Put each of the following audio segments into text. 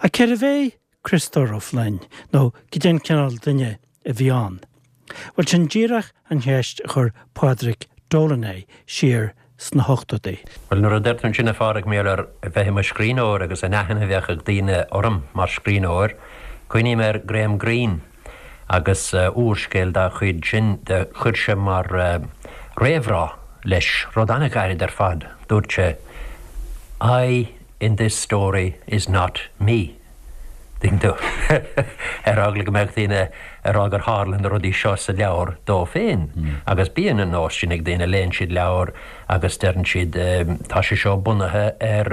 Ach cérbh é Criostóir Ó Floinn, nó cad é an cineál duine a bhí ann? Bhuel, sin díreach an cheist a chuir Pádraig Dolan é siar sna hochtóidí. Bhuel, nuair a deir tú ansin, a Phádraig, mar gheall ar bheith i mo scríbhneoir agus an aithne a bheadh ag daoine orm mar scríbhneoir, cuimhním ar Graham Greene agus úrscéal dá chuid sin, do chuir sé mar réamhrá leis rud an-ghairid ar fad, dúirt sé, I in this story is not me. Tuigeann tú? Ar eagla go mbeadh daoine ag rá gur tharla na rudaí seo sa leabhar dó féin. Agus bíonn an nós sin ag daoine, léann siad leabhar agus deireann siad tá sé seo bunaithe ar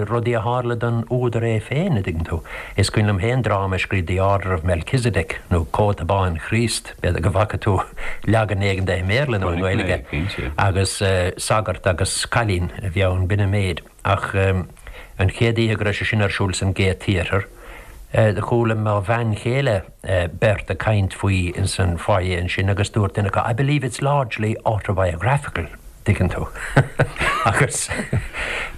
rudaí a tharla don údar é féin, a dtuigeann tú. Is cuimhin liom féin dráma a scríobh The Order of Melchizedek nó Cóta Bán Chríost, b'fhéidir go bhfaca tú leagan éigin de i mBéarla nó i nGaeilge, agus sagart agus cailín a bhí ann, b'in an méid. Ach an chéad oíche go raibh sé sin ar siúl san Gate Theatre, do chuala mo bhean chéile beirt ag caint faoi ins an foyer ansin agus dúirt duine acu, I believe it's largely autobiographical, tuigeann tú. Agus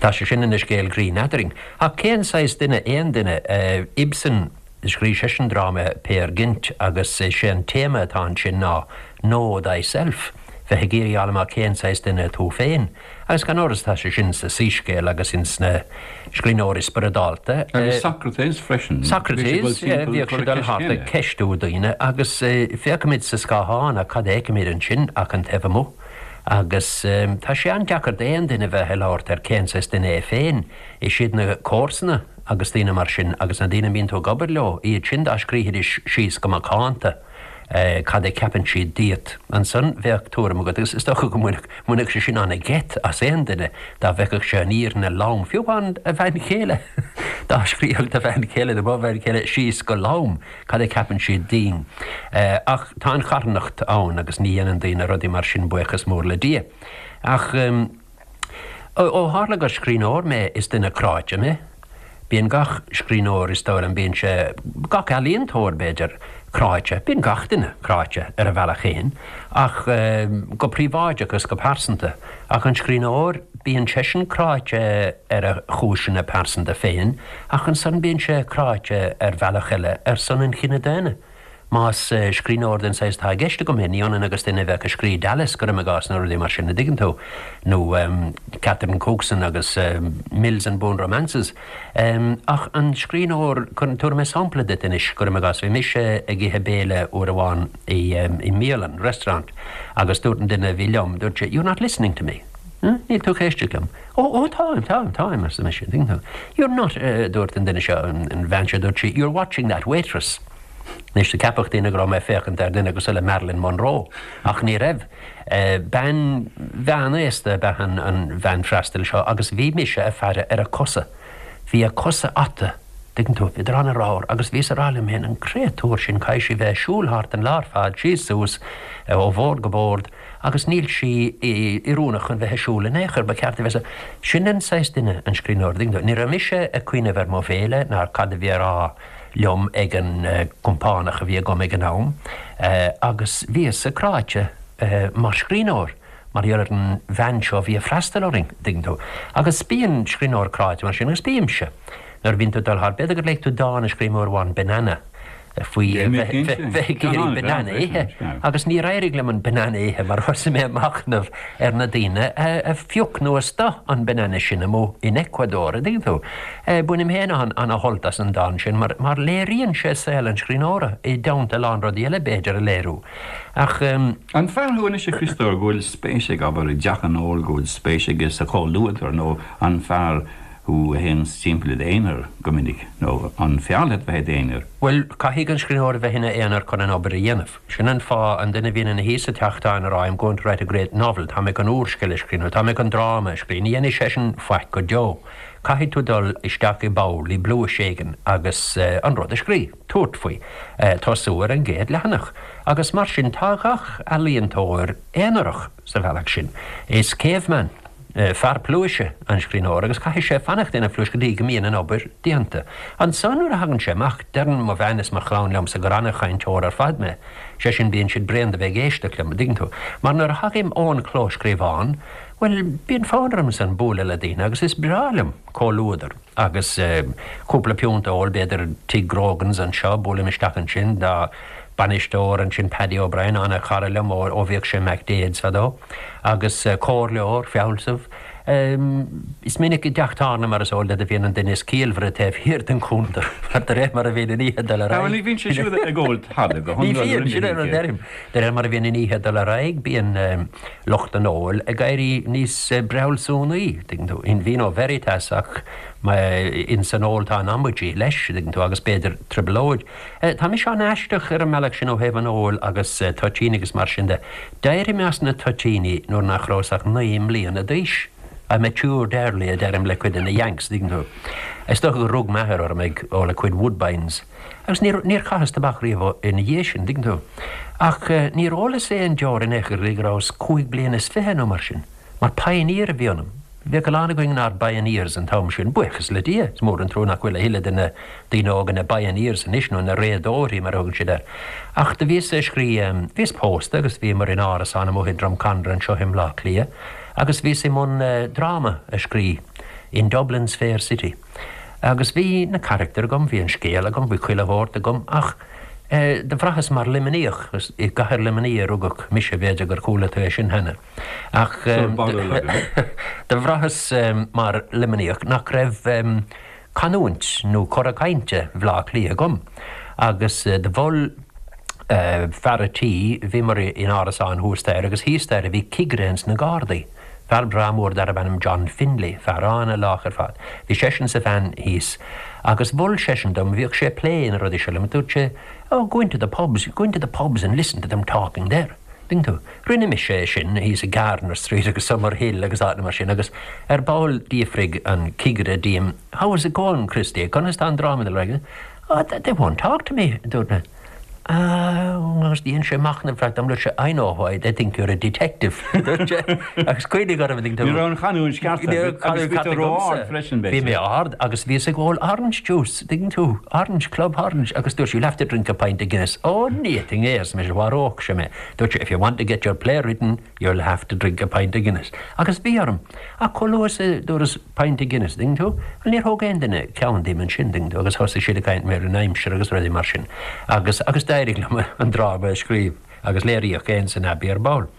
tá sé sin ina scéal grinn eadrainn. Ach cén saghas duine aon duine? Ibsen, scríobh seisean dráma Peer Gynt agus is é an téama atá ansin ná Know thyself, bheith ag iarraidh a fháil amach cén saghas duine tú féin. Agus gan amhras tá sé sin sa Soíscéal agus ins na scríbhneoirí spioradálta. Agus Socrates freisin. Socrates, yeah, bhíodh sé ag dul thart ag ceistiú daoine agus féachaimid sa scáthán ach cad a fheicimid ansin ach an taobh amuigh. Agus tá sé an-deacair d'aon duine bheith ag labhairt ar cén saghas duine é féin. Is iad na comharsana agus daoine mar sin agus na daoine a mbíonn tú ag obair leo, iad sin dá scríobhaidís síos go macánta. cad a cheapann siad díot. Ansan bheadh tuairim agat, agus is dócha go mbainfeadh sé sin an-gheit as aon duine dá bhfeicfeadh sé an fhírinne lom, fiú amháin a bhean chéile, dá scríobhadh do bhean chéile nó mo bhean chéile síos go lom cad a cheapann siad dínn. Ach tá an charthanacht ann agus ní dhéanann daoine rudaí mar sin, buíochas mór le Dia. Ach. Ó tharla gur scríbhneoir mé, is duine cráite mé. Bíonn gach scríbhneoir, is dóigh liom, bíonn sé, gach ealaíontóir, b'fhéidir, cráite. Bíonn gach duine cráite ar a bhealach féin, ach go príobháideach agus go pearsanta. Ach an scríbhneoir, bíonn seisean cráite ar a chúiseanna pearsanta féin, ach ansan bíonn sé cráite ar bhealach eile ar son an chine daonna. Más scríbhneoir den saghas atá i gceist agam é, ní ionann agus duine a bheadh ag scríobh Dallas, cuirim i gcás, nó rudaí mar sin, a dtuigeann tú, nó Catherine Cookson agus Mills and Boon Romances. Ach an scríbhneoir, tabharfaidh mé sampla duit anois, cuirim i gcás, bhí mise ag ithe béile uair amháin i mbialann, restaurant, agus dúirt an duine a bhí liom, dúirt sé, you're not listening to me. Níl tú ag éisteacht liom. Ó, ó, táim, táim, táim, arsa mise, an dtuigeann tú. You're not, a dúirt an duine seo, an bhean seo, dúirt sí, you're watching that waitress. Anois, do ceapfadh daoine go raibh mé ag féachaint ar dhuine cosúil le Marilyn Monroe, ach ní raibh. Bean mheánaosta ab ea an bhean freastail seo agus bhí mise ag faire ar a cosa. Bhí a cosa ata, tuigeann tú, bhíodar an-ramhar agus bhíos ag rá liom féin, an créatúr sin, caithfidh sí bheith ag siúl thart an lá ar fad, síos suas, ó bhord go bord, agus níl sí oiriúnach chun bheith ag siúl in aon chor, ba cheart di bheith sa. Sin an saghas duine an scríbhneoir, an dtuigeann tú. Ní raibh mise ag cuimhneamh ar mo bhéile ná ar cad a bhí á rá liom ag an gcompánach a bhí agam ag an am, agus bhíos-sa cráite mar scríbhneoir mar gheall ar an bhean seo a bhí ag freastal orainn, an dtuigeann tú. Agus bíonn scríbhneoir cráite mar sin, agus bímse, nuair a bhíonn tú ag dul thart, b'fhéidir gur léigh tú dán a scríobh mé uair amháin, Banana. faoi bheith ag iarraidh banana a ithe agus níor éirigh liom an banana a ithe mar thosaigh mé ag machnamh ar na daoine a phioc nó a stoith an banana sin amuigh in Ecuador, an dtuigeann tú. Bainim féin ana-shult as an dán sin mar mar léiríonn sé saol an scríbhneora i dteannta a lán rudaí eile b'fhéidir a léiriú. Ach. An fear thú anois a Chriostóir go bhfuil spéis ag, abair, i dteach an óil, go bhfuil spéis aige sa chomhluadar nó an fear thú a théanns timpeall i d'aonar go minic, nó an fearr leat bheith i d'aonar? Bhuel, caithfidh an scríbhneoir a bheith ina aonar chun an obair a dhéanamh. Sin an fáth, an duine a bhíonn ina shuí sa teach táin ag rá I'm going to write a great novel, tá mé chun úrscéal a scríobh, nó tá mé chun dráma a scríobh, ní dhéanfaidh seisean faic go deo. Caithfidh tú dul isteach i bpoll, i bpluais éigin agus an rud a scríobh, tabhairt faoi, tosú ar an gcéad leathanach. Agus mar sin, tá gach ealaíontóir aonarach sa bhealach sin. Is caveman. Fear pluaise an scríbhneoir agus caithfidh sé fanacht ina phluais go dtí go mbíonn an obair déanta. Ansan nuair a thagann sé amach, deireann mo bhean is mo chlann liomsa gur ana-chainteoir ar fad mé. Sé sin, bíonn siad bréan de bheith ag éisteacht liom, an dtuigeann tú. Mar nuair a thagaim ón clóscríobhán, Bhuel, bíonn fonn ormsa bualadh le daoine agus is breá liom comhluadar agus cúpla piúnt a ól, b'fhéidir Tigh Grogan's anseo, buailim isteach ansin, tá bainisteoir ansin, Paddy O'Brien, an-chara liom ó bhíodh sé i McDaid's fadó, agus comhairleoir, fealsamh. Is minic i dteach tábhairne, mar is eol duit, a bhíonn an duine is ciallmhaire taobh thiar den chuntar, mar de réir mar a bhíonn an oíche ag dul ar aghaidh. Bhuel, ní bhíonn sé siúd ag ól tada go hiondúil. Ní bhíonn, sin é an rud a deirim. De réir mar a bhíonn an oíche ag dul ar aghaidh, bíonn lucht an óil ag éirí níos breabhsúnaí, tuigeann tú, in vino veritas, ach ins an ól tá an amaidí leis, tuigeann tú, agus b'fhéidir trioblóid. Tá mise an-aisteach ar an mbealach sin ó thaobh an óil agus toitíní agus mar sin de. D'éirigh mé as na toitíní nuair nach rabhas ach 9 mbliana d'aois. I matured early, a deirim le cuid de na Yanks, an dtuigeann tú. Is dócha gur rug m'athair orm ag ól a cuid Woodbines. Agus níor, níor chaitheas tobac riamh ina dhiaidh sin, an dtuigeann tú. Ach níor ólas aon deoir in aon chor go dtí go rabhas cúig bliana is fiche nó mar sin. Mar pioneer a bhí ionam. Bhíodh a lán againn inár bpioneers an t-am sin, buíochas le Dia. Is mór an trua nach bhfuil a thuilleadh de na daoine óga ina bpioneers anois, nó ina réadóirí mar a thugann siad air. Ach do bhíos ag scrí, bhíos pósta agus bhíomar in árasán amuigh i Drumcondra anseo i mBleá Cliath agus bhíos i mbun dráma a scrí in Dublin's Fair City. Agus bhí na carachtair agam, bhí an scéal agam, bhí chuile shórt agam ach do bhraitheas mar Luimníoch, is i gcathair Luimnigh a rugadh mise, b'fhéidir gur chuala tú é sin cheana. Ach do bhraitheas mar Luimníoch nach raibh canúint nó cora cainte Bhleá Cliath agam agus do mhol fear a' tí, bhíomar in árasán thuas staighre agus thíos staighre bhí cigire ins na Gardaí, fear breá mór darbh ainm John Finlay, fear an-lách ar fad. Bhí seisean is a bhean thíos agus mhol seisean dom, bhíodh sé ag plé na rudaí seo liom, dúirt sé, Oh, go into the pubs, go into the pubs and listen to them talking there. Tuigeann tú? Rinne mise é sin thíos i Gardiner Street agus Summerhill agus áiteanna mar sin agus ar ball d'fhiafraigh an cigire díom, How is it going, Christy? Conas tá an dráma ag dul ar aghaidh? Oh, they won't talk to me, a dúirt mé. Ah, agus dhein sé machnamh ar feadh tamaill, dúirt sé, I know why, they think you're a detective, a dúirt sé. Agus cuimhnigh orm, tuigeann tú. Ní raibh an chanúint ceart agat agus bhí tú ró-ard freisin, b'fhéidir. Bhí mé ard agus bhíos ag ól orange juice. Tuigeann tú, Orange, Club Orange, agus dúirt sí, you'll have to drink a pint of Guinness. Ó, ní fhéadfainn é, arsa mise, mharódh sé mé. Dúirt sí, if you want to get your play written, you'll have to drink a pint of Guinness. Agus bhí orm. Ach chomh luath is a dúras pint of Guinness, tuigeann tú, bhuel, níor thóg aon duine ceann díom ansin, tuigeann tú, agus thosaigh siad ag caint ar an aimsir agus rudaí mar sin. Agus, agus d'éirigh liom an dráma a scríobh. Agus léiríodh é ins an Abbey ar ball.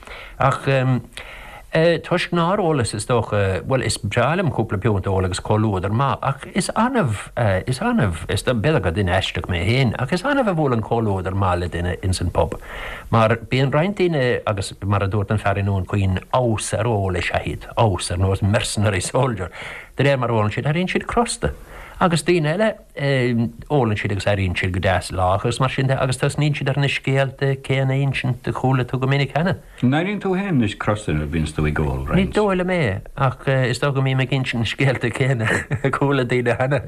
Ach toisc nár ólas, is dócha, bhuel, is breá liom cúpla piúnt a ól agus comhluadar maith, ach is annamh, is annamh, is b'fhéidir gur duine aisteach mé féin, ach is annamh a bhuaileann comhluadar maith le duine ins an pub. Mar bíonn roinnt daoine, agus mar a dúirt an fear i nDún Chaoin, abhus ar ól is ea iad, abhus, ar nós mercenary soldier. De réir mar a ólann siad, éiríonn siad crosta. Agus daoine eile, Ólann siad agus éiríonn siad go deas lách agus mar sin de agus tosnaíonn siad ar na scéalta céanna a insint a chuala tú go minic cheana. An éiríonn tú féin anois crosta nuair a bhíonns tú ag ól, Ní roinnt? dóigh liom é, ach is dócha go mbím ag insint na scéalta céanna a chuala daoine cheana.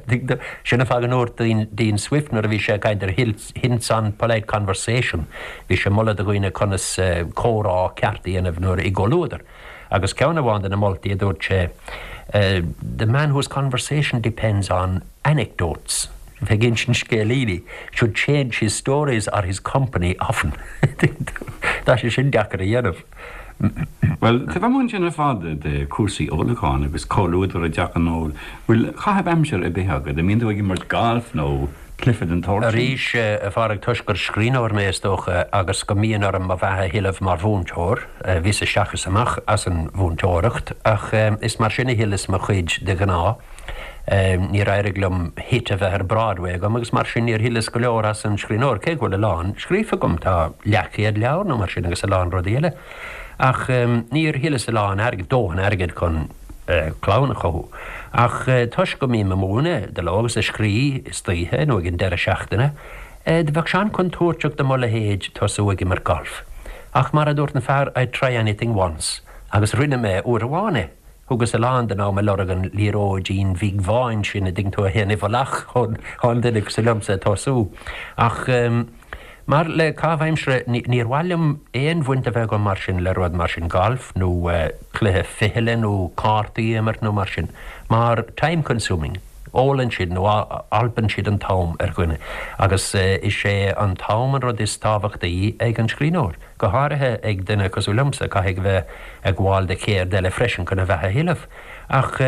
Sin an fáth go ndúirt Dean Swift nuair a bhí sé ag caint ar Hints on Polite Conversation, bhí sé ag moladh do dhaoine conas comhrá ceart a dhéanamh nuair i gcomhluadar. Agus ceann amháin de na moltaí a dúirt sé, The man whose conversation depends on anecdotes, bheith ag insint scéilíní, should change his stories or his company often. Tá sé sin deacair a dhéanamh. Bhuel, taobh amuigh ansin ar fad de chúrsaí ólacháin agus comhluadar i dteach an óil, bhfuil caitheamh aimsire ar bith agat? An mbíonn tú ag imirt gailf nó cluiche den tsórt sin? Arís, a Phádraig, toisc gur scríbhneoir mé, is dócha, agus go mbíonn orm mo bheatha a thuilleamh mar mhúinteoir, Bhíos isteach is amach as an mhúinteoireacht ach is mar sin a thuilleas mo chuid de ghnáth. Níor éirigh liom hit a bheith ar Broadway agam agus mar sin níor thuilleas go leor as an scríbhneoir, cé go bhfuil a lán scríofa agam, tá leathchéad leabhar nó mar sin agus a lán rudaí eile. Ach níor thuilleas a lán airgid, dóthain airgid chun clann a chothú. Ach toisc go mbím ag múineadh de ló agus ag scrí istoíche nó ag an deireadh seachtaine, Do bheadh sé an-chontúirteach do mo leithéid tosú ag imirt gailf. Ach mar a dúirt an fear, I'd try anything once. Agus rinne mé uair amháin é. Thugas a lán den am ag lorg an liathróidín bhig bháin sin, a dtuigeann tú, a théann i bhfolach chun duine cosúil liomsa tosú. Ach mar le caitheamh aimsire, níor mhaith liom aon bhaint a bheith agam mar sin le rud mar sin, galf nó cluiche fichille nó cártaí a imirt nó mar sin. Mar time consuming. Ólann siad nó alpann siad an t-am ar dhuine agus is é an t-am an rud is tábhachtaí ag an scríbhneoir, go háirithe ag duine cosúil liomsa, caithfidh a bheith ag gabháil do cheird eile freisin chun a bheatha a thuilleamh. Ach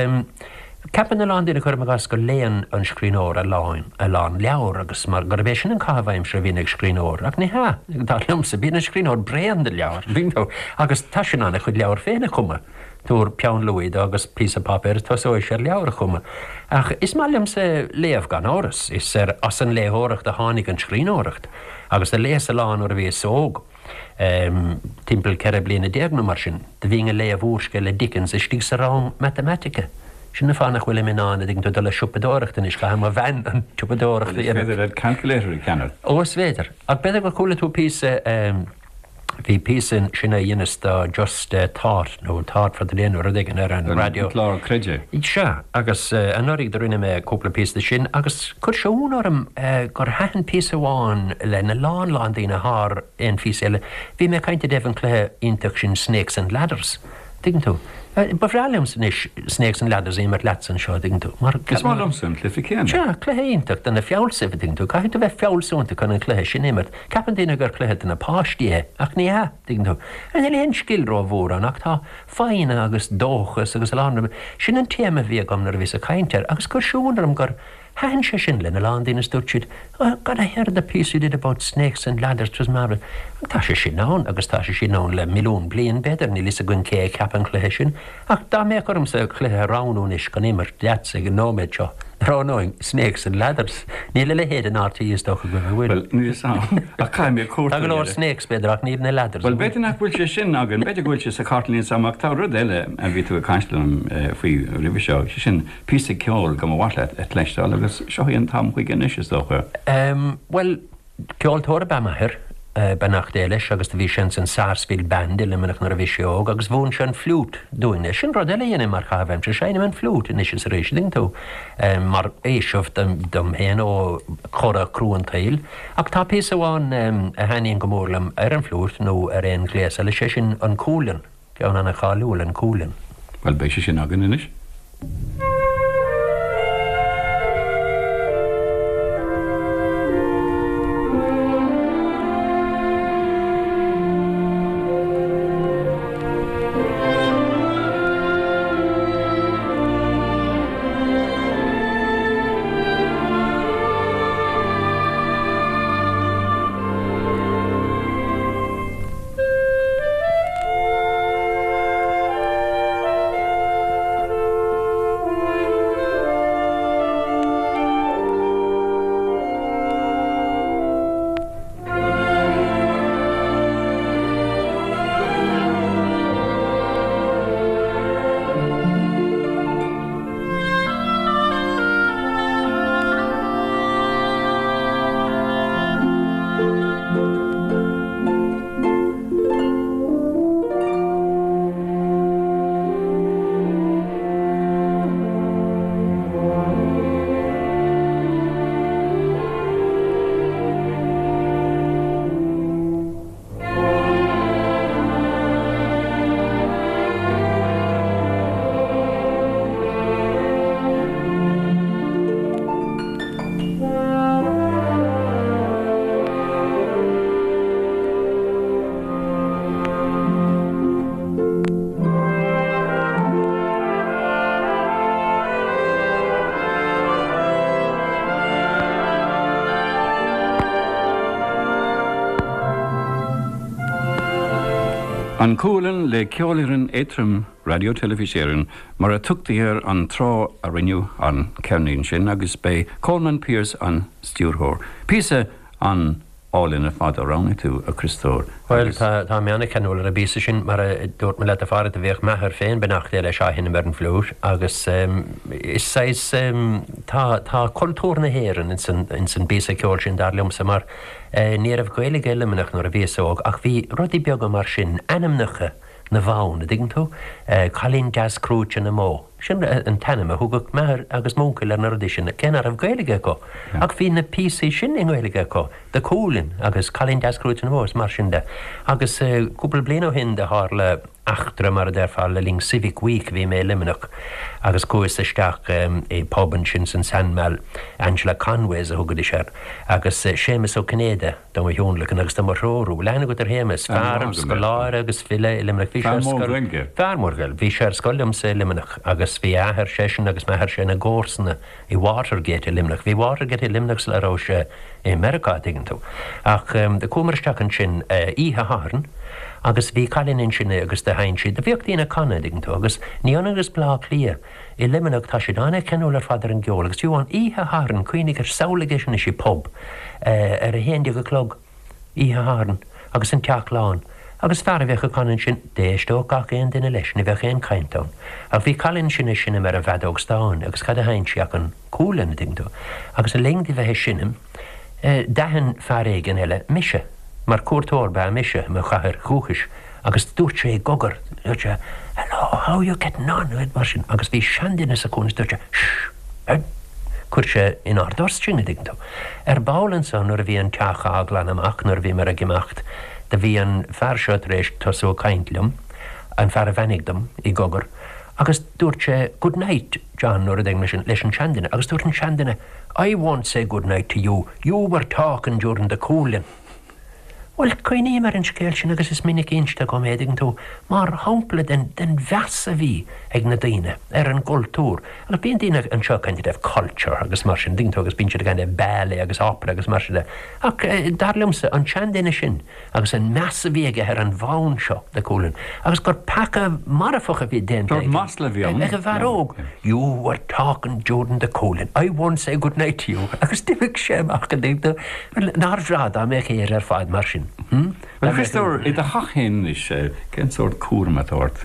ceapann a lán daoine, cuirim i gcás, go léann an scríbhneoir a lán, a lán leabhar agus mar gurb é sin an caitheamh aimsire a bhíonn ag scríbhneoir. Ach ní hea, dar liomsa, bíonn an scríbhneoir bréan de leabhair, agus tá sé in ann a chuid leabhar féin a chumadh. Tabhair peann luaidhe dó agus píosa páipéir is tosóidh sé ar leabhar a chumadh. Ach is maith liomsa léamh, gan amhras. Is ar as an léitheoireacht a tháinig an scríbhneoireacht. Agus do léas a lán nuair a bhíos óg, timpeall 14 bliana nó mar sin. Do bhínn ag léamh úrscéal le Dickens istigh sa rang matamaitice. Sin an fáth nach bhfuilim in ann, a dtuigeann tú, dul ag siopadóireacht anois, caithfidh mo bhean an tsiopadóireacht a dhéanamh. Is féidir leat calculator a cheannach. Ó, is féidir. Ach b'fhéidir gur chuala tú píosa. Bhí píosa ansin a dheineas do Just Thought nó Thought for the Day nó rud éigin ar an raidió. An clár Creid É. Sea, agus anuraidh do rinne mé cúpla píosa de sin agus chuir sé ionadh orm gur thaitin píosa amháin lena lán lán daoine thar aon phíosa eile. Bhí mé ag caint i dtaobh an cluiche iontach sin Snakes and Ladders. Tuigeann tú? Ba bhreá liomsa anois Snakes and Ladders a imirt leatsa anseo, a dtuigeann tú, mar. Is maith liomsa an cluiche céanna. Sea, cluiche iontach do na fealsaimh, a dtuigeann tú. Caithfidh tú bheith fealsúnta chun an cluiche sin a imirt. Ceapann daoine gur cluiche do na páistí é, ach ní hea, tuigeann tú. Níl aon scil rómhór ann ach tá foighne agus dóchas agus a lán. Sin an téama a bhí agam nuair a bhíos ag caint air agus chuir sé ionadh orm gur Thaitin sé sin lena lán daoine is dúirt siad, Oh God, I heard the piece you did about snakes and ladders, it was marvellous. Tá sé sin ann agus tá sé sin ann le milliún bliain, b'fhéidir, níl fhios againn cé a cheap an cluiche sin. Ach dá mbeadh ormsa cluiche a roghnú anois chun imirt leatsa ag an nóiméad seo, roghnóinn Snakes and Ladders. Níl a leithéid in RTÉ is dócha go bhfuil. Bhuel, níl fhios a'm, ach caithfidh mé cuartú Tá go leor snakes, b'fhéidir, ach níl na ladders. Bhuel, b'fhéidir nach bhfuil sé sin againn, b'fhéidir go bhfuil sé sa chartlann, níl fhios a'm, ach tá rud eile a bhí tú ag caint liom faoi roimhe seo, sé sin píosa ceoil go mba mhaith leat a chloisteáil agus seo é an t-am chuige anois, is dócha. Bhuel, ceoltóir ab ea m'athair, beannacht Dé leis, agus do bhí sé ins an Sarsfield Band i Luimneach nuair a bhí sé óg agus mhúin sé an fliúit dúinne. Sin rud eile a dhéanaim mar chaitheamh aimsire, seinnim an fliúit anois is arís, an dtuigeann tú, mar fhaoiseamh dom féin ó chora crua an tsaoil. Ach tá píosa amháin a thaitníonn go mór liom ar an bhfliúit nó ar aon ghléas eile, sé sin an Cualann. Ceann ana-cháiliúil, an Cualann. Bhuel, beidh sé sin againn anois. An Cualann le Ceolfhoireann Aontroim Raidió Teilifís Éireann mar a tugtaí air an tráth a rinneadh an ceirnín sin agus b'é Colman Pearse an stiúrthóir. Píosa an álainn ar fad a roghnaigh tú, a Chriostóir, Bhuel, agus. tá, tá mé an-cheanúil ar an bpíosa sin. Mar a dúirt mé leat, a Phádraig, do bhíodh m'athair féin, beannacht Dé leis, á sheinm ar an bhfliúit agus is saghas, tá, tá cultúr na hÉireann ins an, ins an bpíosa ceoil sin, dar liomsa, mar ní raibh Gaeilge i Luimneach nuair a bhíos óg ach bhí rudaí beaga mar sin, ainmneacha na bhfonn, a dtuigeann tú, Cailín Deas Crúite na mBó. Sin an t-ainm a thugadh m'athair agus m'uncail ar na rudaí sin, cé nach raibh Gaeilge acu. Ach bhí na píosaí sin i nGaeilge acu, The Coolin agus Cailín Deas Crúite na mBó is mar sin de. Agus cúpla bliain ó shin do tharla. eachtra, mar a déarfá, le linn Civic Week, bhí mé i Luimneach agus chuas isteach i bpub ansin san Sandymall, Angela Conway's a thugaidís air, agus Séamus Ó Cinnéide do mo thionlacan agus do mo threorú. Bhfuil aithne agat ar Shéamus? Fear, scoláire agus file i Luimneach. Bhí sé ar scoil. Fear mór Gaeilge. Bhí sé ar scoil liomsa i Luimneach agus bhí a athair seisean agus m'athairse ina gcomharsana i Watergate i Luimneach. Bhí Watergate i Luimneach sula raibh sé i Meiriceá, tuigeann tú. Ach do chuamar isteach ansin oíche Shathairn agus bhí cailín ansin agus do sheinn sí. Do bhíodh daoine ag canadh, tuigeann tú, agus ní ionann agus Baile Átha Cliath, i Luimneach tá siad an-cheanúil ar fad ar an gceol agus fiú amháin oíche Shathairn, cuimhnigh air, samhlaigh é sin anois i bpub ar a haon déag a chlog oíche Shathairn agus an teach lán agus fear a bheadh ag canadh ansin, d'éisteodh gach aon duine leis, ní bheadh aon chaint ann. Ach bhí cailín ansin ag seinm ar an bhfeadóg stáin agus cad a sheinn sí ach an Cualann, an dtuigeann tú. Agus le linn di bheith ag seinm, d'aithin fear éigin eile mise, mar cuairteoir ba ea mise i mo chathair dhúchais, agus dúirt sé i gcogar, dúirt sé, Hello, how are you getting on? mar sin, agus bhí seanduine sa chúinne is dúirt sé, Shh! Chuir sé inár dtost sinn, an dtuigeann tú. Ar ball ansan nuair a bhí an teach á ghlanadh amach, nuair a bhíomar ag imeacht, do bhí an fear seo tar éis tosú ag caint liom, an fear a bheannaigh dom, i gcogar, agus dúirt sé, Good night, John, nó rud éigin mar sin, leis an seanduine, agus dúirt an seanduine, I won't say good night to you, you were talking during the Cualann. Bhuel, cuimhním ar an scéal sin agus is minic inste agam é, tuigeann tú, mar shampla den, den mheas a bhí ag na daoine ar an gcultúr. Agus bíonn daoine anseo ag caint i dtaobh culture agus mar sin, tuigeann tú, agus bíonn siad ag caint i dtaobh ballet agus opera agus mar sin de. Ach dar liomsa, an seanduine sin agus an meas a bhí aige ar an bhfonn seo, The Cualann, agus gur peaca marfach a bhí déanta aige, masla a bhí ann. ag an bhfear óg. You were talking during the Cualann, I won't say good night to you. Agus d'imigh sé amach, an dtuigeann tú. Nár bhreá dá mbeadh Éire ar fad mar sin? Hm? Bhuel, a Chriostóir, i do theach féin anois, cén sórt cúram atá ort?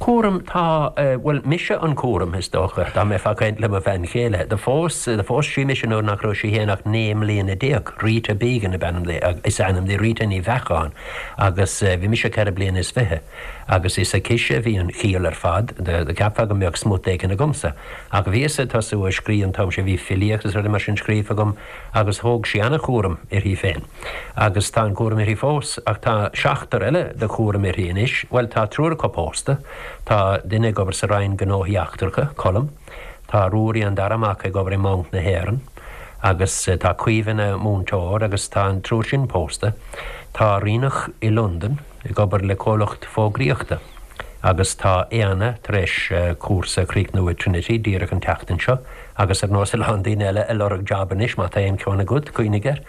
Cúram, tá, bhuel, mise an cúram, is dócha, dá mbeifeá ag caint le mo bhean chéile. Do phós, do phós sí mise nuair nach raibh sí féin ach 19 mbliana. Rita Began ab ainm di, is ainm di, Rita Ní Bheacháin, agus bhí mise ceithre bliana is fiche. Agus is aicise a bhí an chiall ar fad, do cheapfá go mbeadh smut éigin agamsa. Ach bhíos ag tosú ag scríobh an t-am sin, bhí filíocht is rudaí mar sin scríofa agam, Agus thóg sí ana-chúram uirthi féin. Agus tá an cúram uirthi fós. Ach tá seachtar eile de chúram uirthi anois. Bhuel, tá triúr acu pósta. Tá duine ag obair sa Roinn Gnóthaí Eachtracha, Colm. Tá Ruairí, an dara mac, ag obair i mBanc na hÉireann. Agus tá Caoimhe ina múinteoir agus tá an triúr sin pósta. Tá Ríonach i Londain ag obair le comhlacht fógraíochta. Agus tá Éanna tar éis cúrsa a chríochnú i Trinity díreach an tseachtain seo. Agus ar nós a lán daoine eile ag lorg jab anois, má tá aon cheann agat, cuimhnigh air.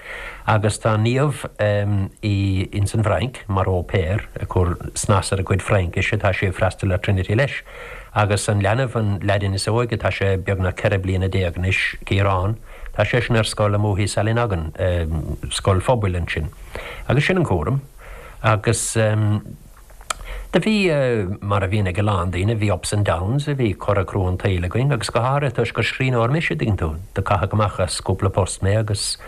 Agus tá Niamh i ins an bhFrainc mar au pair, ag cur snas ar a cuid Fraincise, tá sí ag freastal ar Trinity leis. Agus an leanbh, an leaidín is óige, tá sé beagnach 14 bliana anois, Ciarán, tá seisean ar scoil amuigh i Sallynoggin, scoil phobail ansin. Agus sin an cúram. Agus. Do bhí, mar a bhíonn ag a lán daoine, bhí ups and downs, bhí cora crua an tsaoil againn agus go háirithe toisc gur scríbhneoir mise, dtuigeann tú. Do caitheadh amach as cúpla post mé agus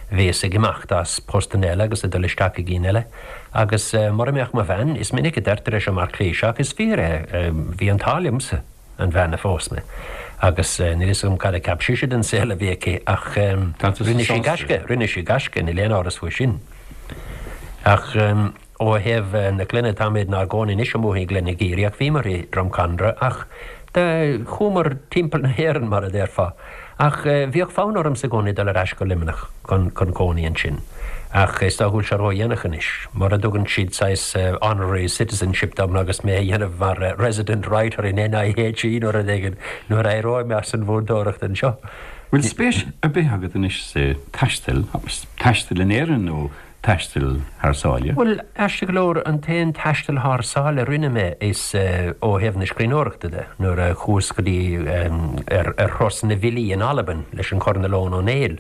bhíos ag imeacht as postanna eile agus ag dul isteach i gcinn eile. Agus mura mbeadh mo bhean, is minic a deirtear é seo mar cliché ach is fíor é, bhí an t-ádh liomsa an bhean a phós mé. Agus níl a fhios agam cad a cheap sise den saol a bhí aici ach rinne sí gaisce, rinne sí gaisce, níl aon amhras faoi sin. Ach. Ó thaobh na clainne, táimid inár gcónaí anois amuigh i nGleann na gCaorach, ach bhíomar i Drumcondra, ach do chuamar timpeall na hÉireann, mar a déarfá. Ach bhíodh fonn ormsa i gcónaí dul ar ais go Luimneach chun cónaí ansin. Ach is dócha go bhfuil sé ródhéanach anois. Mura dtugann siad saghas honorary citizenship dom agus mé a dhéanamh mar resident writer in NIHE nó rud éigin nuair a éireoidh mé as an mhúinteoireacht anseo. Bhfuil spéis ar bith agat anois sa taisteal, taisteal in Éirinn nó taisteal thar sáile? Bhuel, aisteach go leor, an t-aon taisteal thar sáile a rinne mé is ó thaobh na scríbhneoireachta de, nuair a chuas go dtí ar thuras na bhfilí in Albain leis an Choirnéal Eoghan Ó Néill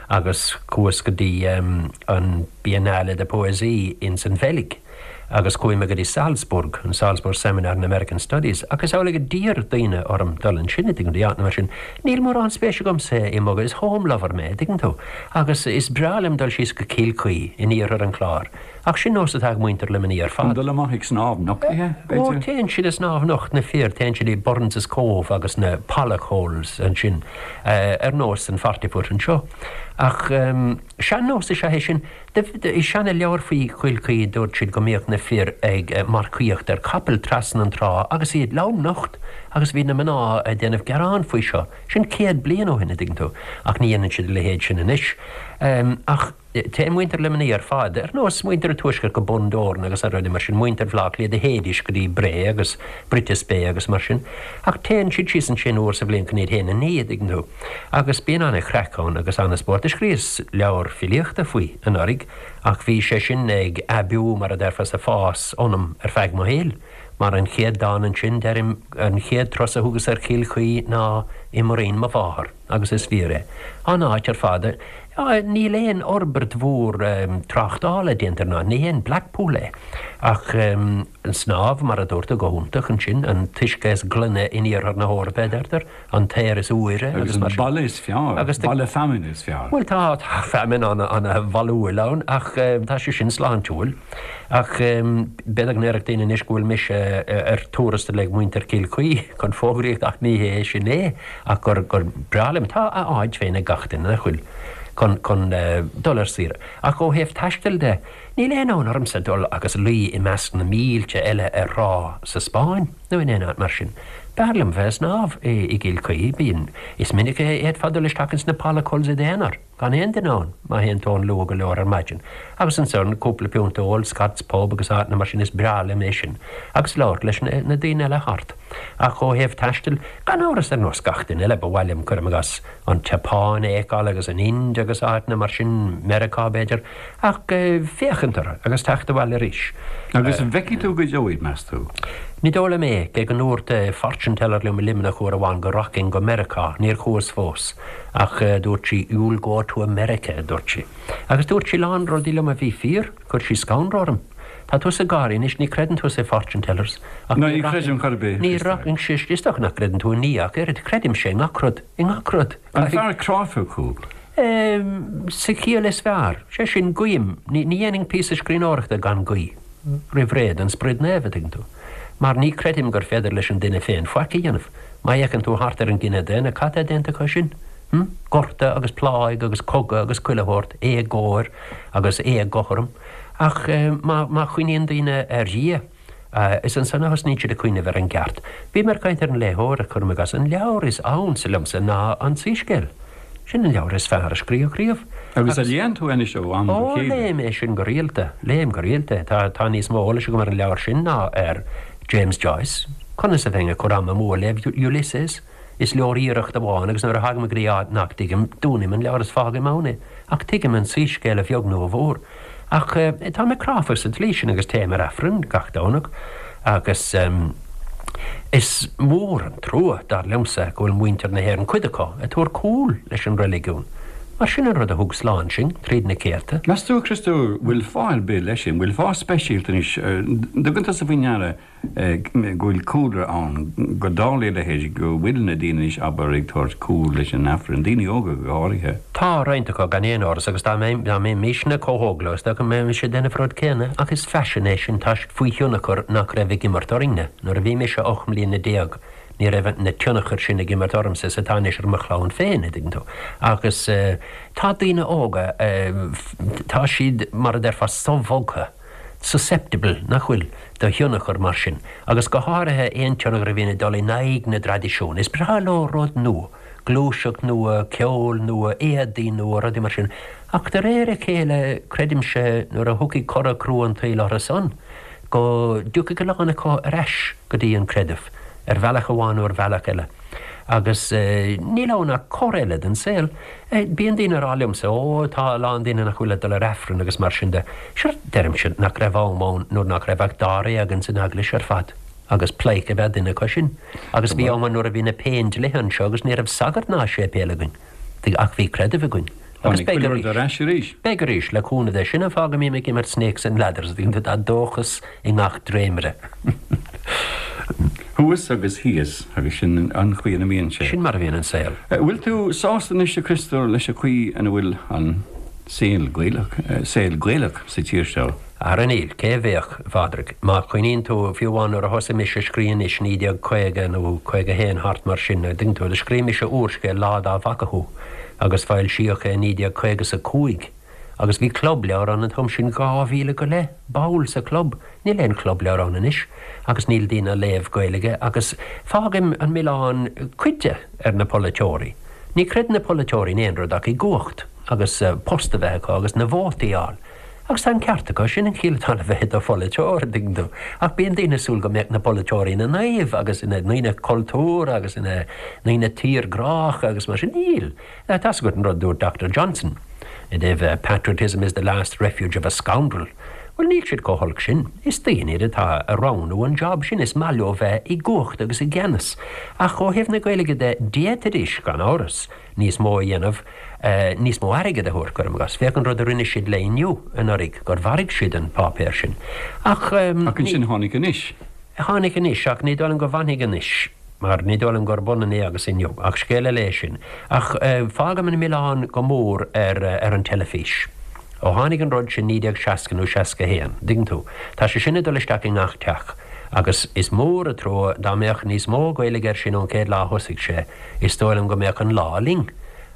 agus chuas go dtí an Biennale de Poésie ins an Bheilg. Agus chuaigh mé go dtí Salzburg, an Salzburg Seminar in American Studies, ach is amhlaidh a d'iarr daoine orm dul ansin, an dtuigeann tú, áiteanna mar sin. Níl mórán spéise agamsa i mbogadh, is home lover mé, an dtuigeann tú, agus is breá liom dul síos go Cill Chaoi in iarthar an Chláir, ach sin nós atá ag muintir Luimnigh ar fad. An dul amach ag snámh nochtaithe, b'fhéidir? Ó, téann siad ag snámh nocht, na fir, téann siad i Burns' Cove agus na Pollock Holes ansin, ar nós an Forty Foot anseo. Ach sean-nós is ea é sin. I seana-leabhar faoi Chill Chaoi dúirt siad go mbíodh na. na fir ag marcaíocht ar chapaill trasna an trá agus iad lomnocht agus bhí na mná ag déanamh gearán faoi seo. Sin 100 bliain ó shin, a dtuigeann tú, ach ní dhéanann siad a leithéid sin anois. Ach téann muintir Luimnigh ar fad, ar nós muintir an Tuaiscirt go Bundoran agus rudaí mar sin, muintir Bhaile Átha Cliath do théidís go dtí Bré agus Brittas Bay agus mar sin, ach téann siad síos ansin uair sa bhliain chun iad féin a ní, a dtuigeann tú. Agus bíonn an-chraic ann agus an-spórt. Do scríos leabhar filíochta faoi anuraidh ach bhí sé sin ag aibiú, mar a déarfá, is ag fás ionam ar feadh mo shaoil. Mar an chéad dán ansin, deirim, an chéad turas a thugas ar Chill Chaoi ná i muirín mo mháthar, agus is fíor é. An áit ar fad, níl aon fhorbairt mhór tráchtála déanta ar an áit, ní haon Blackpool é. Ach an snámh, mar a dúirt tú, go hiontach ansin, an t-uisce is glaine in iarthar na hEorpa, a deirtear. an t-aer is úire agus mar sin. Agus an baile is fearr, Agus baile feamainne is fearr. Bhuel tá, tá feamainn ana-bholúil ann ach tá sé sin sláintiúil. Ach b'fhéidir go ndéarfadh daoine anois go bhfuil mise ar tuarastal ag muintir Chill Chaoi chun fógraíocht ach ní hé sin é ach gur, gur breá liom. Tá a áit féin ag gach duine, nach bhfuil, chun, chun dul ar saoire. Ach ó thaobh taistil de, níl aon fhonn ormsa dul agus luí i measc na mílte eile ar thrá sa Spáinn. nó in aon áit mar sin. B'fhearr liom bheith ag snámh i gCill Chaoi. Bíonn. Is minic a fhéadfá dul isteach ins na Pollock Holes i d'aonar, gan aon duine ann, má théann tú ann luath go leor ar maidin. Agus ansan, cúpla piúnt a ól, Scott's Pub agus áiteanna mar sin, is breá liom é sin. Agus labhairt leis na daoine eile thart. Ach ó thaobh taistil, gan amhras, ar nós gach duine eile, ba mhaith liom, cuirim i gcás, an tSeapáin a fheiceáil agus an Ind agus áiteanna mar sin, Meiriceá b'fhéidir. Ach féachaint orthu agus teacht abhaile arís. Agus an bhfeicfidh tú go deo iad, meas tú? Ní dóigh liom é, cé go ndúirt fortune teller liom i Luimneach uair amháin go rachainn go Meiriceá, níor chuas fós, ach dúirt sí you'll go to America, a dúirt sí. Agus dúirt sí a lán rudaí liom a bhí fíor, chuir sí scanradh orm. Tá tusa ag gáirí anois, ní chreideann tusa i fortune tellers, ach ní chreidim chor ar bith, ní rachainnse, is dócha nach gcreideann tú i nDia ach oiread, creidimse i ngach rud, i ngach rud. An fear cráifeach thú? Sa chiall is fearr. Sé sin, guím. Ní dhéanfainn píosa scríbhneoireachta gan guí roimh ré don Sprid Naomh, a dtuigeann tú. Mar ní creidim gur féidir leis an duine féin faic a dhéanamh. Má fhéachann tú thart ar an gcine daonna, cad tá déanta acu sin? Hm? Gorta agus pláigh agus cogadh agus chuile shórt, éagóir agus éagothrom. Ach má chuimhníonn daoine ar Dhia, Is ansan a thosnaíonn siad ag cuimhneamh ar an gceart. Bhí mé ag caint ar an léitheoir, cuirim i gcás. An leabhar is ansa liomsa ná An Soiscéal. Sin an leabhar is fearr a scríodh riamh. Agus a léann tú anois ó am go Ó, chéile? léim é sin go rialta. Léim go rialta é. Tá, tá níos mó eolais agam ar an leabhar sin ná ar James Joyce. Conas a bheinn ag cur am amú ag léamh Ulysses? Is leor iarracht amháin agus nuair a thagaim go dtí áit nach dtuigim, dúnaim an leabhar is fágaim ann é. Ach tuigim an Soiscéal a bheag nó a mhór. Ach tá mé cráifeach sa tslí sin agus téim ar Aifreann gach Domhnach agus is mór an trua, dar liomsa, go bhfuil muintir na hÉireann, cuid acu, ag tabhairt cúl leis an reiligiún. Mar sin an rud a thug slán sinn tríd na céadta. Meas tú, a Chriostóir, bhfuil fáth ar bith leis sin? Bhfuil fáth speisialta anois? Dtugann tusa faoi ndeara go bhfuil cúlra ann, go dtarlaíonn a leithéid, go bhfuil na daoine anois, abair, ag tabhairt cúl leis an Aifreann, daoine óga go háirithe. Tá roinnt acu, gan aon amhras, agus dá mbeimisne chomh hóg leo, is dócha go mbeimis ag déanamh an rud céanna, ach is faisean é sin, tá siad faoi thionchar nach raibh ag imirt orainne. Nuair a bhí mise 18 mbliana, ní raibh na tionchair sin ag imirt ormsa is atá anois ar mo chlann féin, a dtuigeann tú. Agus tá daoine óga, tá siad, mar a déarfá, sobhogtha. susceptible, nach bhfuil, do thionchar mar sin, agus go háirithe aon tionchar a bhíonn ag dul in aghaidh na dtraidisiún. Is breá leo rud nua, gluaiseacht nua, ceol nua, éadaí nua, rudaí mar sin. Ach de réir a chéile, creidimse, nuair a thiocfaidh cora crua an tsaoil orthu san, go dtiocfaidh a lán acu ar ais go dtí an creideamh, ar bhealach amháin nó ar bhealach eile. Agus níl ann ach cor eile den saol. Bíonn daoine ag rá liomsa, Ó, tá a lán daoine nach bhfuil ag dul ar Aifreann agus mar sin de. Sure, deirimse, nach raibh am ann nuair nach raibh ach dáréag ins an eaglais ar fad, agus pleidhce ab ea duine acu sin. Agus bhí am ann nuair a bhí na Péindlithe anseo agus ní raibh sagart ná séipéal againn. Ach bhí creideamh againn. Agus beidh arís. Ar ais arís. Beidh arís, le cúnamh Dé. Sin an fáth go mbím ag imirt Snakes and Ladders, tá dóchas i ngach dréimire. Thuas agus thíos, agus sin an chaoi ina mbíonn sé. Sin mar a bhíonn an saol. Bhfuil tú sásta anois, a Chriostóir, leis an chaoi ina bhfuil an saol Gaelach, saol Gaelach sa tír seo? Ara níl, cé a bheadh, a Phádraig? Má chuimhníonn tú, fiú amháin nuair a thosaigh mise ag scríobh anois, 1950 nó 51, thart mar sin, a dtuigeann tú, do scríobh mise úrscéal, Lá Dá bhFaca Thú, agus foilsíodh é i 1955. Agus bhí club leabhar ann an t-am sin, 2,000 go leith ball sa chlub. Níl aon chlub leabhar ann anois agus níl daoine ag léamh Gaeilge agus fágaim an milleán cuid de ar na polaiteoirí. Ní chreideann na polaiteoirí in aon rud ach i gcumhacht agus post a bheith acu agus na vótaí a fháil. Agus tá an ceart acu, sin an chiall atá le bheith i do pholaiteoir, an dtuigeann tú. Ach bíonn daoine ag súil go mbeadh na polaiteoirí ina naoimh agus ina ndaoine cultúrtha agus ina ndaoine tírghrácha agus mar sin. Níl. Tá's agat an rud a dúirt Doctor Johnson i dtaobh 'patriotism is the last refuge of a scoundrel'. Bhuel, níl siad chomh holc sin. Is daoine iad atá ag roghnú an job sin, is maith leo bheith i gcumhacht agus i gceannas. Ach ó thaobh na Gaeilge de, d'fhéadfaidís, gan amhras, níos mó a dhéanamh, níos mó airgid a thabhairt, cuirim i gcás. Féach an rud a rinne siad le Inniu anuraidh, gur mharaigh siad an páipéar sin. Ach. Ach ansin tháinig Anois. Tháinig Anois, ach ní dóigh liom go bhfanfaidh Anois, mar ní dóigh liom gurb ionann é agus Inniu. Ach scéal eile é sin. Ach fágaim an milleán go mór ar ar an teilifís. Ó tháinig an rud sin 1960 nó 61, dtuigeann tú, tá sé sin ag dul isteach i ngach teach. Agus is mór an trua dá mbeadh níos mó Gaeilge air sin ón chéad lá a thosaigh sé, Is dóigh liom go mbeadh an lá linn.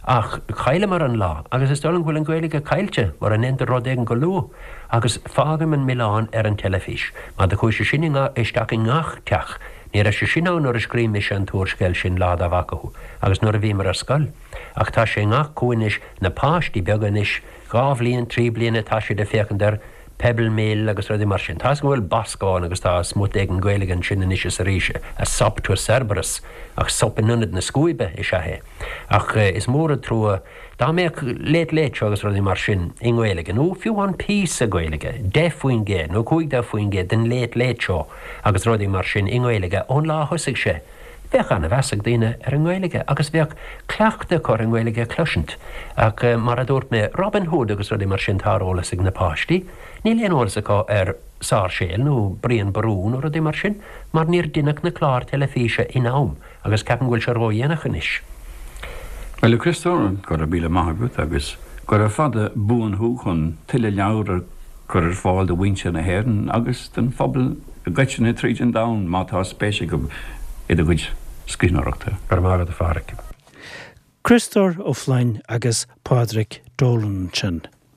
Ach chailleamar an lá, agus is dóigh liom go bhfuil an Ghaeilge caillte mura ndéantar rud éigin go luath. Agus fágaim an milleán ar an teilifís. Mar do chuaigh sé sin isteach i ngach teach. Ní raibh sé sin ann nuair a scríobh mise an t-úrscéal sin, Lá Dá bhFaca Thú, agus nuair a bhíomar ar scoil. Ach tá sé i ngach cúinne anois, na páistí beaga anois, 2 bhliain, 3 bliana, tá siad ag féachaint ar Pebble Mill agus rudaí mar sin. Tá's agam go bhfuil Bosco ann agus tá smut éigin Gaeilge ansin anois is arís, a sop to Cerberus, ach sop in ionad na scuaibe is ea é. Ach is mór an trua dá mbeadh Late Late Show agus rudaí mar sin i nGaeilge, nó fiú amháin píosa Gaeilge, 10% nó 15% den Late Late Show agus rudaí mar sin i nGaeilge ón lá a thosaigh sé. Bheadh an-mheas ag daoine ar an nGaeilge agus bheadh cleachtadh acu ar an nGaeilge a chloisint. Ach mar a dúirt mé, Robin Hood agus rudaí mar sin tá ar eolas ag na páistí. Níl aon eolas acu ar Sáirséal nó Brian Boru nó rudaí mar sin mar níor deineadh na cláir teilifíse in am agus ceapaim go bhfuil sé ródhéanach anois. Bhuel, a Chriostóir, go raibh míle maith agat agus gura fada buan thú chun tuilleadh leabhar a chur ar fáil do mhuintir na hÉireann agus don phobal i gcoitinne tríd an domhan má tá spéis acu i do chuid scríbhneoireachta. Go raibh maith agat, a Pháraic. Criostóir Ó Floinn agus Pádraig Dolan ansin.